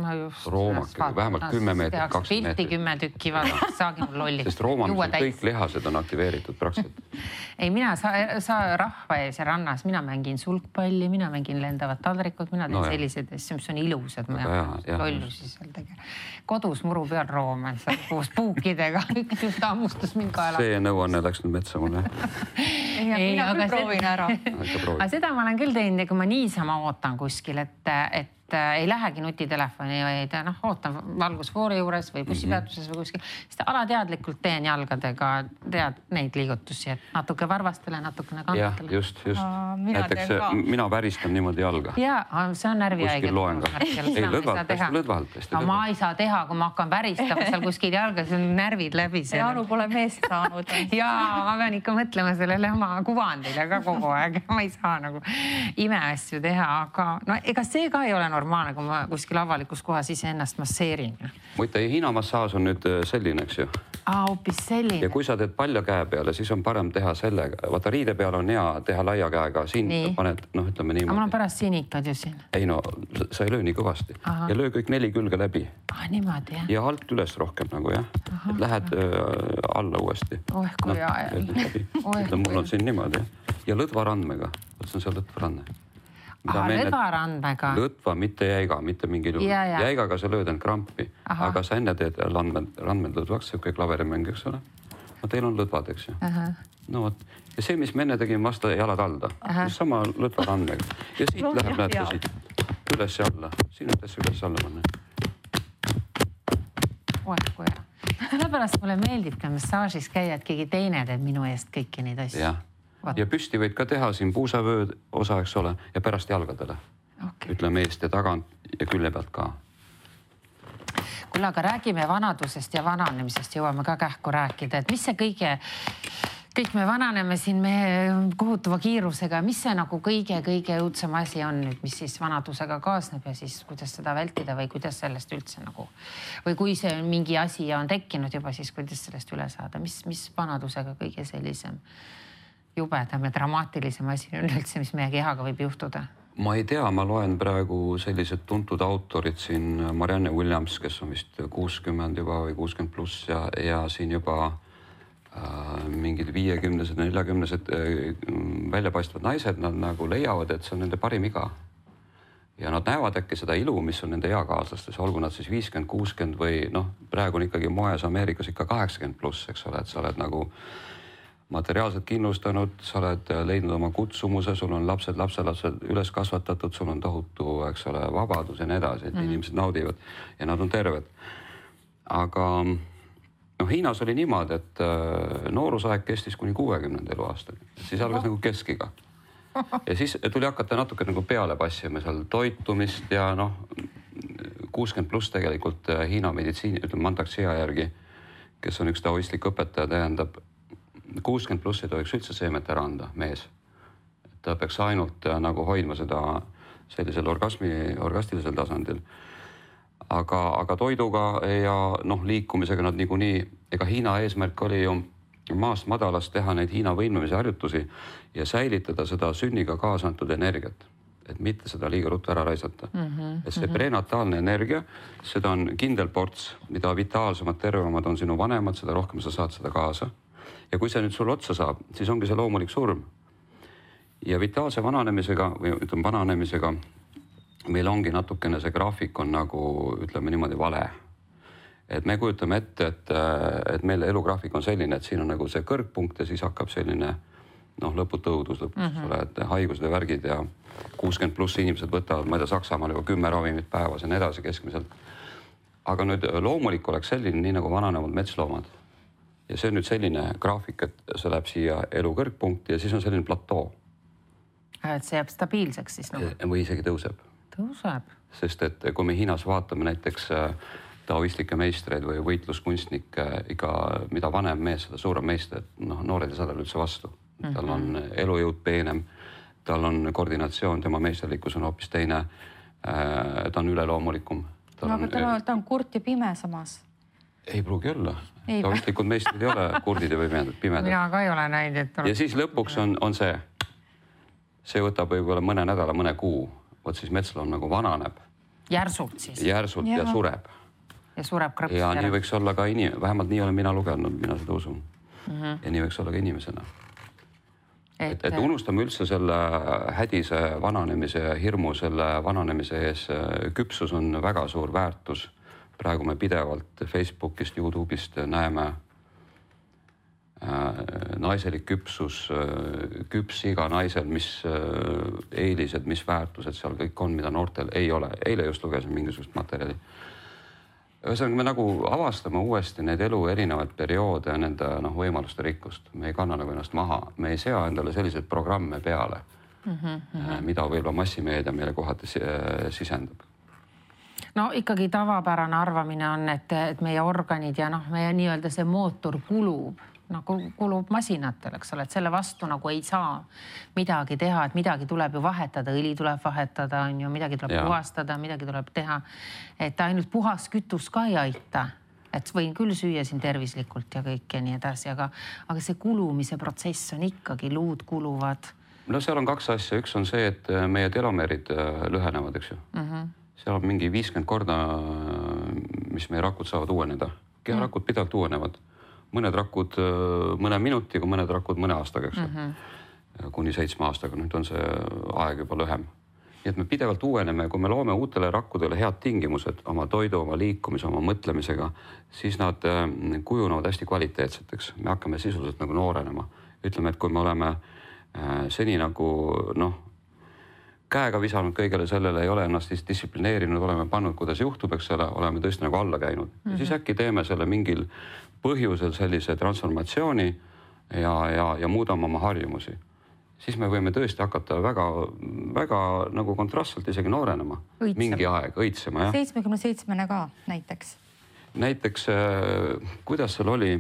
Roomake, vähemalt 10 meetrit, 20 meetrit. Pilti 10 tükki, saagi mul lolli. Sest roomamisel kõik lihased on aktiveeritud praktiliselt. Ei, mina sa rahva ees ja rannas, mina mängin sulgpalli, mina mängin lendavad taldrikud, mina teen sellised asju, mis on ilusad. Lollusi seal tegema. Kodus muru peal room. Koos puukidega, üks hammustas mind kaela. See nõuanne läks nüüd metsa mulle. Mina küll proovin ära. Aga seda ma olen küll teinud, kui ma niisama ootan kuskil, et ei lähegi nutitelefoni, vaid ootan valgusfoori juures või bussipeatuses või kuskil. Siis alateadlikult teen jalgadega neid liigutusi, et natuke varvastele, natukene kantele. Just. Näiteks mina väristan niimoodi jalga. Jaa, see on närvihaige. Kuskil loen ka. Ei, lõdvalt. Ma ei saa teha, kui ma hakkan väristama seal kuskil jalga, see on närvid läbi. Anu pole meest saanud. Jaa, ma pean ikka mõtlema sellele oma kuvandile ka kogu aeg. Ma ei saa nagu imeasju teha, aga ega see ka ei ole normaalne, kui ma kuskil avalikus kohas ise ennast masseerin. Muide, hiinamassaaž on nüüd selline, eks ju. Hoopis selline. Ja kui sa teed palja käe peale, siis on parem teha sellega. Vaata, riide peale on hea teha laia käega. Siin paned, ütleme niimoodi. Aga mul on pärast sinikad ju siin. Ei sa ei löö nii kõvasti. Ja löö kõik 4 külge läbi. Niimoodi, jah. Ja alt üles rohkem nagu, jah. Et lähed alla uuesti. Kui ajal. Mul on siin niimoodi. Ja lõdvarandmega. See on seal lõdvarandme. Lõdvarandmega. Lõdva, mitte jäiga, mitte mingil juhul. Jäigaga sa lööd end krampi, aga sa enne teed randmed lõdvaks, see kõik laverimäng, eks ole. Teil on lõdvad, eks ju. Ja see, mis me enne tegime vasta jalad alda, sama lõdvarandmega. Ja siit läheb, näete siit, üles ja alla. Siin ütlesse üles alla panna. Kui hea. Sellepärast mulle meeldib ka massaažis käia, et keegi teine teeb minu eest kõiki neid asju. Ja püsti võid ka teha siin puusavööd osa, eks ole, ja pärast jalgadele. Ütleme eest ja tagant ja külje pealt ka. Kuule, aga räägime vanadusest ja vananemisest, jõuame ka kähku rääkida, et mis see kõik me vananeme siin kohutava kiirusega, mis see nagu kõige õudsem asi on nüüd, mis siis vanadusega kaasneb ja siis kuidas seda vältida või kuidas sellest üldse nagu, või kui see mingi asi on tekkinud juba, siis kuidas sellest üle saada, mis vanadusega kõige sellisem jubedam ja dramaatilisem asi on üldse, mis meie kehaga võib juhtuda? Ma ei tea, ma loen praegu sellised tuntud autorid siin, Marianne Williams, kes on vist 60 juba või 60 pluss ja siin juba mingid 50-sed, 40-sed väljapaistvad naised, nad nagu leiavad, et see on nende parim iga. Ja nad näevad äkki seda ilu, mis on nende eakaaslastes, olgu nad siis 50, 60 või praegu on ikkagi moes Ameerikas ikka 80 pluss, eks ole, et sa oled nagu materiaalselt kindlustanud, sa oled leidnud oma kutsumuse, sul on lapsed üles kasvatatud, sul on tohutu, eks ole, vabadus ja nii edasi, et inimesed naudivad ja nad on terved. Aga Hiinas oli niimoodi, et noorusaeg kestis kuni 60 eluaastani. Siis algas nagu keskiga. Ja siis tuli hakata natuke nagu peale passima seal toitumist ja 60 pluss tegelikult Hiina meditsiini, ütleme Mantak-Chia järgi, kes on üks taoistlik õpetaja, tähendab 60 pluss ei tohiks üldse seemet ära anda, mees. Ta peaks ainult nagu hoidma seda sellisel orgastilisel tasandil. Aga toiduga ja liikumisega nad niikuinii, ega Hiina eesmärk oli ju maast madalast teha neid Hiina võimlemise harjutusi ja säilitada seda sünniga kaasa antud energiat, et mitte seda liiga ruttu ära raisata. Et see prenataalne energia, seda on kindel ports, mida vitaalsemad, tervemad on sinu vanemad, seda rohkem sa saad seda kaasa. Ja kui see nüüd sul otsa saab, siis ongi see loomulik surm. Ja vitaalse vananemisega või ütleme vananemisega meil ongi natukene see graafik on nagu, ütleme niimoodi, vale. Et me kujutame ette, et meil elugraafik on selline, et siin on nagu see kõrgpunkt ja siis hakkab selline lõputu õudus lõpuks, et haigused ja värgid ja 60 pluss inimesed võtavad, ma ei tea, Saksamaal juba 10 ravimit päevas ja nii edasi keskmiselt. Aga nüüd loomulik oleks selline, nii nagu vananevad metsloomad. Ja see on nüüd selline graafik, et see läheb siia elu kõrgpunkti ja siis on selline platoo. Et see jääb stabiilseks siis nagu? Või isegi tõuseb. Tõuseb. Sest et kui me Hiinas vaatame näiteks taoistlikke meistreid või võitluskunstnikke, iga mida vanem mees, seda suurem meister, noored ei saa tal üldse vastu. Tal on elujõud peenem, tal on koordinatsioon, tema meisterlikkus on hoopis teine, ta on üleloomulikum. Aga ta on kurt ja pime samas. Ei pruugi olla. Taoistlikud meistrid ei ole kurdid ja pimedad. Mina ka ei ole näinud. Ja siis lõpuks on see võtab võib-olla mõne nädala, mõne kuu. Võt siis metsloom nagu vananeb. Järsult siis? Järsult ja sureb. Ja sureb krõpst ja nii võiks olla ka vähemalt nii olen mina lugenud, mina seda usun. Ja nii võiks olla ka inimesena. Et unustame üldse selle hädise vananemise ja hirmu selle vananemise ees. Küpsus on väga suur väärtus. Praegu me pidevalt Facebookist, YouTube'ist näeme naiselik küpsus, küps iga naisel, mis eelised, mis väärtused seal kõik on, mida noortel ei ole. Eile just lugesin mingisugust materjali. Ühesõnaga me nagu avastame uuesti need elu erinevaid perioode ja nende võimaluste rikkust. Me ei kanna nagu ennast maha. Me ei sea endale selliseid programme peale, mida võib-olla massimeedia meile kohati sisendab. No ikkagi tavapärane arvamine on, et meie organid ja meie nii-öelda see mootor kulub masinatel, eks ole, et selle vastu nagu ei saa midagi teha, et midagi tuleb ju vahetada, õli tuleb vahetada, midagi tuleb puhastada, midagi tuleb teha, et ainult puhas kütus ka ei aita, et võin küll süüa siin tervislikult ja kõik ja nii edasi, aga see kulumise protsess on ikkagi, luud kuluvad. No seal on kaks asja, üks on see, et meie telomeerid lühenevad, eks ju. Seal on mingi 50 korda, mis meie rakud saavad uueneda. Keharakud pidevalt uuenevad. Mõned rakud mõne minutiga, mõned rakud mõne aastaga, eks. Kuni 7 aastaga, nüüd on see aeg juba lühem. Nii et me pidevalt uueneme ja kui me loome uutele rakkudele head tingimused oma toidu, oma liikumise, oma mõtlemisega, siis nad kujunevad hästi kvaliteetseteks. Me hakkame sisuliselt nagu noorenema. Ütleme, et kui me oleme seni nagu käega visanud kõigele sellele, ei ole ennast distsiplineerinud, oleme pannud, kuidas juhtub, eks selle, oleme tõesti nagu alla käinud. Ja siis äkki teeme selle mingil põhjusel sellise transformatsiooni ja muudame oma harjumusi. Siis me võime tõesti hakata väga nagu kontrastselt isegi noorenema. Mingi aeg, õitsema, jah. 77 ka näiteks. Näiteks, kuidas seal oli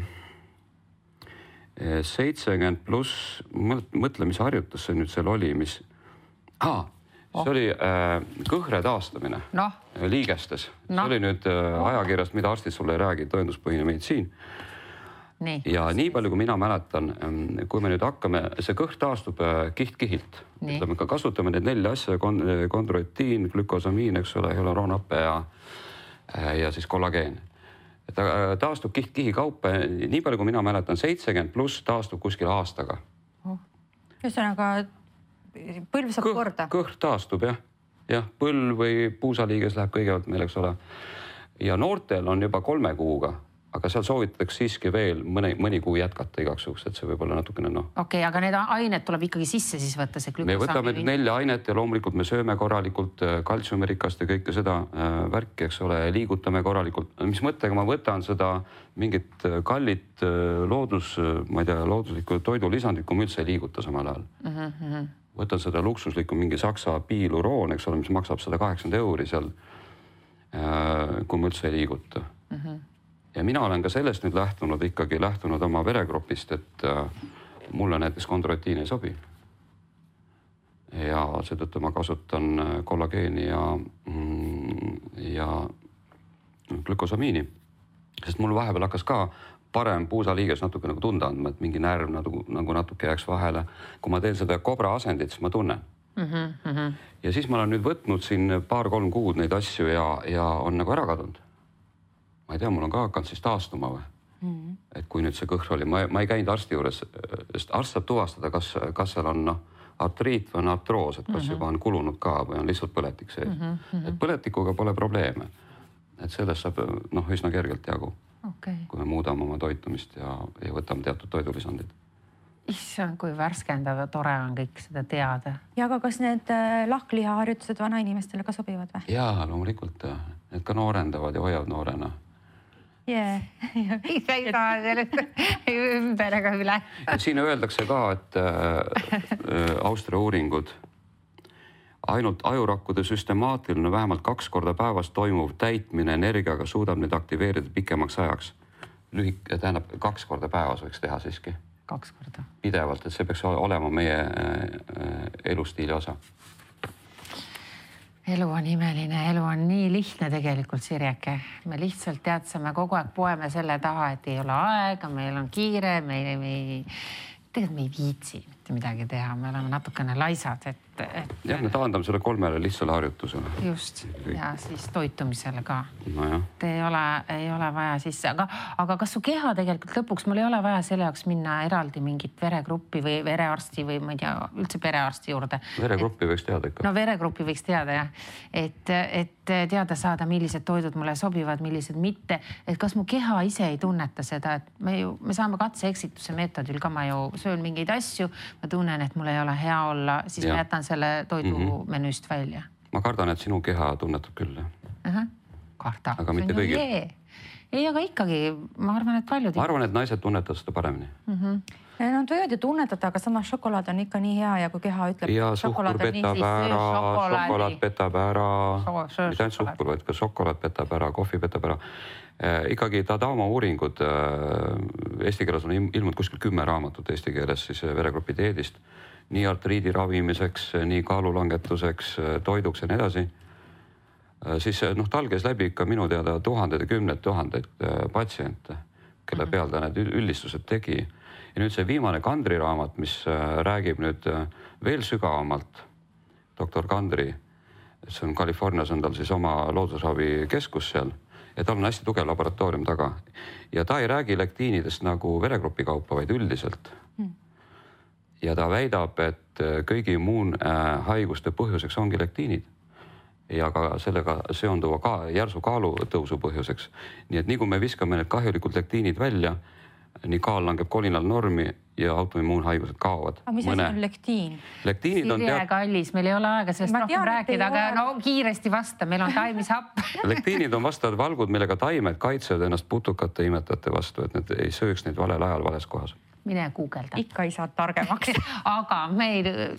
70 pluss mõtlemisharjutus see nüüd seal oli, mis... See oli kõhre taastamine liigestes. See oli nüüd ajakirjast, mida arstid sulle ei räägi, tõenduspõhine meditsiin. Ja nii palju, kui mina mäletan, kui me nüüd hakkame, see kõhr taastub kiht-kihilt. Ütleme, ka kasutame need 4 asja, kondroitiin, glükosamiin, eks ole, hyaluroonhappe ja siis kollageen. Taastub kiht-kihi kaupa. Nii palju, kui mina mäletan, 70 pluss taastub kuskil aastaga. Ühesõnaga põlv saab korda. Kõhr taastub, jah. Jah, põlv või puusaliiges läheb kõigepealt meil, eks ole. Ja noortel on juba 3 kuuga aga seal soovitatakse siiski veel mõni kuu jätkata igaks juhuks, et see võib olla natukene Okei, aga need ained tuleb ikkagi sisse siis võtta, see glükosaami. Me võtame 4 ainet ja loomulikult me sööme korralikult kaltsiumirikast ja kõike seda värki, eks ole, liigutame korralikult. Mis mõttega ma võtan seda mingit kallit ma ei tea, looduslikku toidulisandit, kui ma üldse ei liiguta samal ajal. Võtan seda luksuslikku mingi saksa piiluroon, eks ole, mis maksab 180 € seal, kui ma üldse ei liiguta. Ja mina olen ka sellest nüüd lähtunud oma veregrupist, et mulle näiteks kondroitiin ei sobi. Ja seetõttu ma kasutan kollageeni ja glükosamiini, sest mul vahepeal hakkas ka parem puusaliiges natuke nagu tunda andma, et mingi närv nagu natuke jääks vahele. Kui ma teen seda kobra asendit, siis ma tunnen. Ja siis ma olen nüüd võtnud siin 2-3 kuud neid asju ja on nagu ära kadunud. Ma ei tea, mul on ka hakanud siis taastuma või. Et kui nüüd see kõhr oli, ma ei käinud arsti juures, sest arst saab tuvastada, kas seal on artriit või on artroos, et kas juba on kulunud ka või on lihtsalt põletik sees. Et põletikuga pole probleeme. Et sellest saab üsna kergelt jagu. Kui me muudame oma toitumist ja võtame teatud toidulisandid. Issand, kui värskendav ja tore on kõik seda teada. Ja aga kas need lahklihaharjutused vana inimestele ka sobivad või? Jaa, loomulikult. Need ka noorendavad ja hoiavad noorena. Ise ei saa sellest ümber ega üle. Siin öeldakse ka, et Austria uuringud, ainult ajurakkude süstemaatiline vähemalt 2 korda päevas toimuv täitmine energiaga suudab need aktiveerida pikemaks ajaks. Tähendab, 2 korda päevas võiks teha siiski. 2 korda. Pidevalt, et see peaks olema meie elustiili osa. Elu on imeline, elu on nii lihtne tegelikult, Sirjeke. Me lihtsalt teadsame kogu aeg poeme selle taha, et ei ole aega, meil on kiire, tegelikult me ei viitsi mitte midagi teha, me oleme natukene laisad, Jah, me taandame selle 3 lihtsale harjutusele. Just, ja siis toitumisele ka. Nojah. Ei ole vaja sisse, aga kas su keha tegelikult lõpuks, mul ei ole vaja selle jaoks minna eraldi mingit veregruppi või verearsti või ma ei tea, üldse perearsti juurde. Veregruppi võiks teada ikka. No veregruppi võiks teada, jah. Et teada saada, millised toidud mulle sobivad, millised mitte. Et kas mu keha ise ei tunneta seda, et me saame katse-eksituse meetodil ka, ma ju söön mingeid asju, ma tunnen, et mul ei ole hea olla, siis ma jätan selle toidu menüüst välja. Ma kardan, et sinu keha tunnetab küll. Karda. Aga mitte kõigil. Ei, aga ikkagi, ma arvan, et paljud. Ma arvan, et naised tunnetavad seda paremini. Nad võivad ju tunnetada, aga samas šokolaad on ikka nii hea ja kui keha ütleb... Ja suhkur petab ära, šokolaad petab ära, mitte ainult suhkur, vaid ka šokolaad petab ära, kohvi petab ära. Ikkagi Tadama uuringud, eesti keeles on ilmunud kuskil 10 raamatut eesti keeles siis veregrupi dieedist, nii artriidi ravimiseks, nii kaalulangetuseks, toiduks ja nii edasi. Siis talges läbi ikka minu teada tuhandeid ja kümneid tuhandeid patsiente, kelle peal ta need üldistused tegi. Ja nüüd see viimane Kandri raamat, mis räägib nüüd veel sügavamalt, doktor Kandri, see on Californias, on tal siis oma loodusravi keskus seal ja tal on hästi tugev laboratoorium taga. Ja ta ei räägi lektiinidest nagu veregrupi kaupa, vaid üldiselt. Ja ta väidab, et kõigi immuunhaiguste põhjuseks ongi lektiinid ja ka sellega seonduva ka järsu kaalutõusu põhjuseks. Nii et nii kui me viskame need kahjulikud lektiinid välja, nii kaal langeb kolinal normi ja autoimmuunhaigused kaovad. Aga mis asi on lektiin? Lektiinid on Sirje kallis, meil ei ole aega sellest rohkem rääkida, aga kiiresti vasta, meil on taimisapp. Lektiinid on vastavad valgud, millega taimed kaitsevad ennast putukate imetajate vastu, et need ei sööks neid valel ajal vales kohas. Mine guugelda. Ikka ei saa targemaks. Aga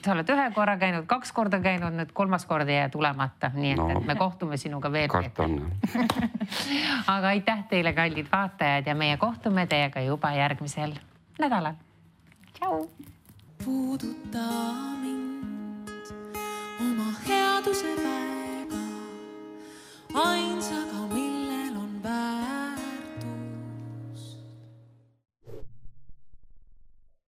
sa oled 1 korra käinud, 2 korda käinud, nüüd 3. korda jää tulemata. Nii et me kohtume sinuga veel. Kartan. Aga aitäh teile, kallid vaatajad, ja meie kohtume teiega juba järgmisel nädalal. Tšau! Puuduta mind oma headuse väega, ainsa